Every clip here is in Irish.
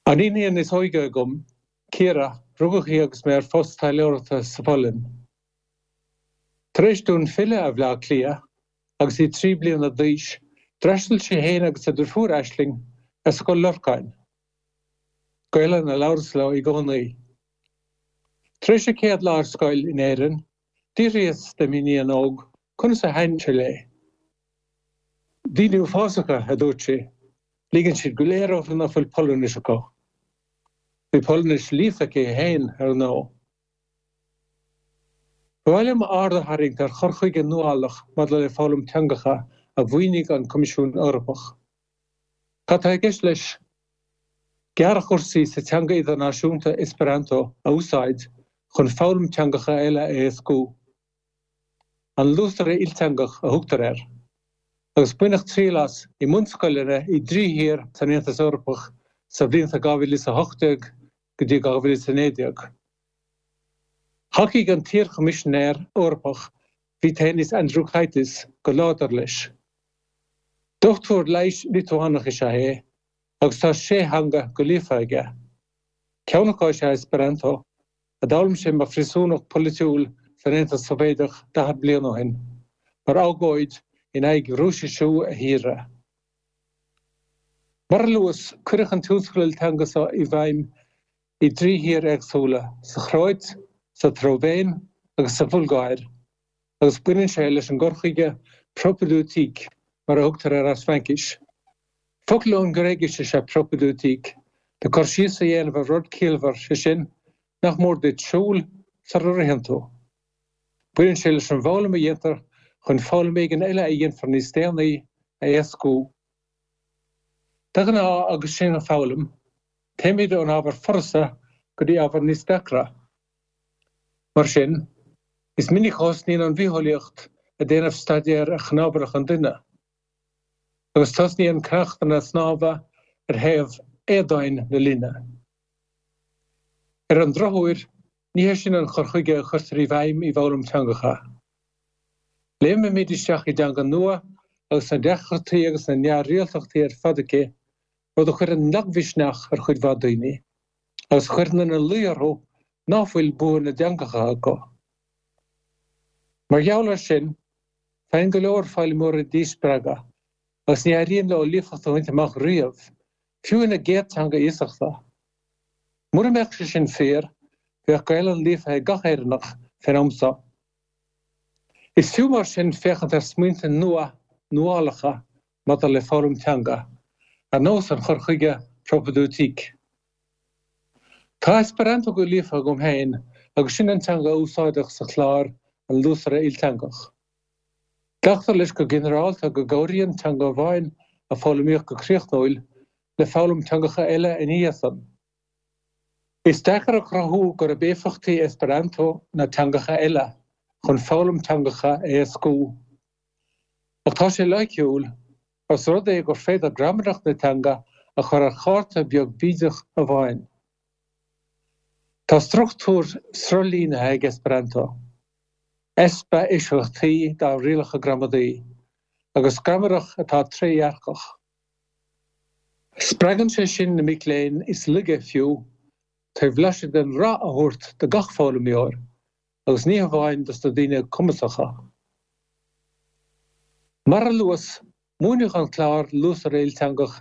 An iníon is óige agam, Ciara, rugadh í agus mé ar phost taidhleoireachta sa Pholainn. Tar éis dúinn filleadh ar Bhleá Cliath, agus í 3 bliana d'aois, d'fhreastail sí féin agus a deirfiúr Aisling ar Scoil Lorcáin. Gaelainn a labhras leo i gcónaí. Tar éis a céad lá ar scoil in Éirinn, d'fhiafraíos de m'iníon óg conas a thaitin sé léi. Daoine uafásacha, a dúirt sí. Ligeann siad go léir orthu nach bhfuil Polainnis acu. Bhí Polainnis líofa aici féin, ar ndóigh. Ba mhaith liom aird a tharraingt ar chur chuige nuálach maidir le foghlaim teangacha a mhaoinigh an Coimisiún Eorpach. Cad tá i gceist leis? Gearrchúrsaí sa teanga idirnáisiúnta Esperanto a úsáid chun foghlaim teangacha eile a éascú. An Luasaire Ilteangach a thugtar air, agus baineadh triail as i mbunscoileanna i dtrí thír san Aontas Eorpach sa bhlianta 2018 go dtí 2019. Thacaigh an t-iar-Choimisinéir Eorpach Vytenis Andriukaitis go láidir leis. Dochtúir leighis Liotuánach is ea é agus tá sé theanga go líofa aige. Ceann acu is ea Esperanto, a d'fhoghlaim sé mar phríosúnach polaitiúil san Aontas Sóivéadach 40 bliain ó shin, mar agóid in aghaidh Rúisisiú a thíre. Mar a luas, cuireadh an tionscadal ilteanga seo i bhfeidhm i dtrí thír éagsúla, sa Chróit, sa tSlóivéin agus sa Bhulgáir, agus baineann sé leis an gcur chuige propédeutique, mar a thugtar air as Fraincis. Focal ón nGréigis is ea propédeutique, le cur síos a dhéanamh ar rud ciallmhar, sé sin, nach mór duit siúl sara ritheann tú. Baineann sé leis an bhfoghlaim a dhéantar chun foghlaim éigin eile a dhéanfar níos déanaí a éascú. De ghnáth agus sinn ag foghlaim, téimid ón ábhar furasta go dtí ábhar níos deacra. Mar sin, is minic a thosnaíonn an bhitheolaíocht ag déanamh staidéir ar chnámharlach an duine. agus tosnaíonn ceachtanna snámha ar thaobh éadomhain na linne. Ar an drochuair, ní hé sin an cur chuige a chuirtear i bhfeidhm i bhfoghlaim teangacha. Léimimid isteach i dteanga nua agus na deacrachtaí agus na neamhrialtachtaí ar fad aici, rud a chuireann lagmhisneach ar chuid mhaith daoine, agus a chuireann ina luí orthu ná fuil bua na dteangacha acu. Mar gheall air sin, Faigheann go leor foghlaimeoirí díspreagadh agus ní éiríonn leo líofacht a bhaint amach riamh, fiú ina gcéad teanga iasachta. Mura mbeadh sé sin fíor, bheadh Gaelainn líofa ag gach Éireannach fén am seo. Is fiú mar sin féachaint ar smaointe nua nuálacha maidir le foghlaim teanga, ar nós an chur chuige propédeutique. Tá Esperanto go líofa agam féin agus sin an teanga a úsáideadh sa chlár An Luasaire Ilteangach. Glactar leis go ginearálta go gcabhraíonn teanga amháin a foghlaimíodh go críochnúil le foghlaim teangacha eile ina dhiaidh san. Is deacair a chruthú gurb éifeachtaí Esperanto ná teangacha eile chun foghlaim teangacha a éascú. Ach tá sé loighciúil Os rud é gur féidir gramadach na teanga a chur ar chárta beag bídeach amháin. Tá struchtúr sruthlínithe ag Esperanto, easpa eisceachtaí dá rialacha gramadaí, agus gramadach atá trédhearcach. Spreagann sé sin na mic léinn is laige fiú, trí bhlaiseadh den rath a thabhairt do gach foghlaimeoir, agus ní hamháin dos na daoine cumasacha. Mar a luas, múineadh an clár Luasaire Ilteangach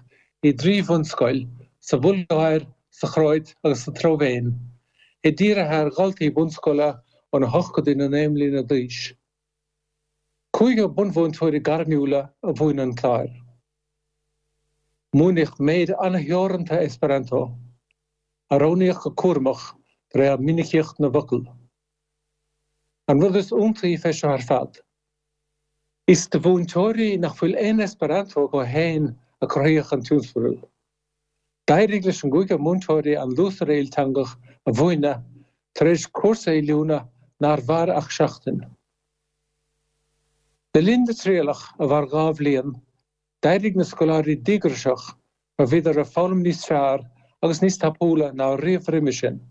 i dtrí bhunscoil, sa Bhulgáir, sa Chróit agus sa tSlóivéin, é dírithe ar dhaltaí bunscoile ón 8 go dtí na 9 mbliana d'aois. Cúigear bunmhúinteoirí gairmiúla a mhúin an clár. Múineadh méid an-theoranta Esperanto. a roghnaíodh go cúramach de réir mhinicíocht na bhfocal. An rud is iontaí fé seo ar fad, is do mhúinteoirí nach bhfuil aon Esperanto acu féin a cruthaíodh an tionscadal. D'éirigh leis an gcúigear múinteoirí an Luasaire Ilteangach a mhúineadh tar éis cúrsa oiliúna nár mhair ach seachtain. Le linn na trialach, a mhair 2 bhliain, D'éirigh na scoláirí díograiseach mar bhíodar ag foghlaim níos fearr agus níos tapúla ná riamh roimhe sin.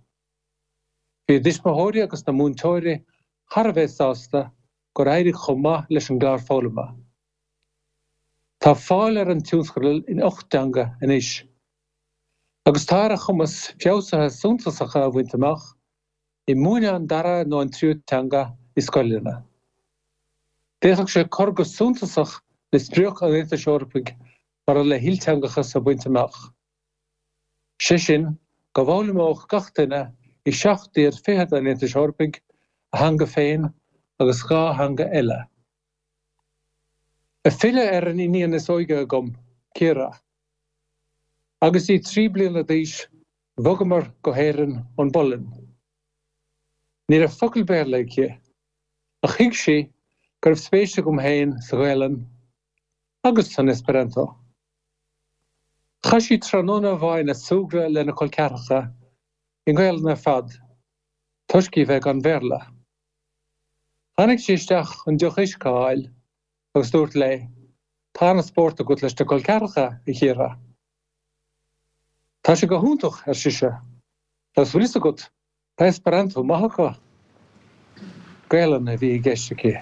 Bhí a dtuismitheoirí agus na múinteoirí thar a bheith sásta gur éirigh chomh maith leis an gclár foghlama. Tá fáil ar an tionscadal in 8 dteanga anois. Agus tá ar a chumas feabhsuithe suntasacha a bhaint amach i múineadh an dara nó an tríú teanga i scoileanna. D'fhéadfadh sé cur go suntasach le sprioc an Aontais Eorpaigh maidir le hilteangachas a bhaint amach. Sé sin, go bhfoghlaimeodh gach duine i seacht dtír fichead an Aontais Eorpaigh a theanga féin agus 2 theanga eile. Ag filleadh ar an iníon is óige agam, Ciara. Agus í 3 bliana d'aois, bhogamar go hÉirinn ón bPolainn. Ní raibh focal Béarla aici, ach thuig sí go raibh spéis agam féin sa Ghaelainn agus san Esperanto. Chaith sí tráthnóna amháin ag súgradh lena col ceathracha i nGaelainn ar fad, toisc í bheith gan Bhéarla. Tháinig sí isteach chun deoch uisce a fháil agus dúrt léi, Tá an-spórt agat leis na col ceathracha, a Chiara. Tá sé go hiontach, ar sise, agus bhfuil fhios agat, tá Esperanto maith acu. Gaelainn a bhí i gceist aici.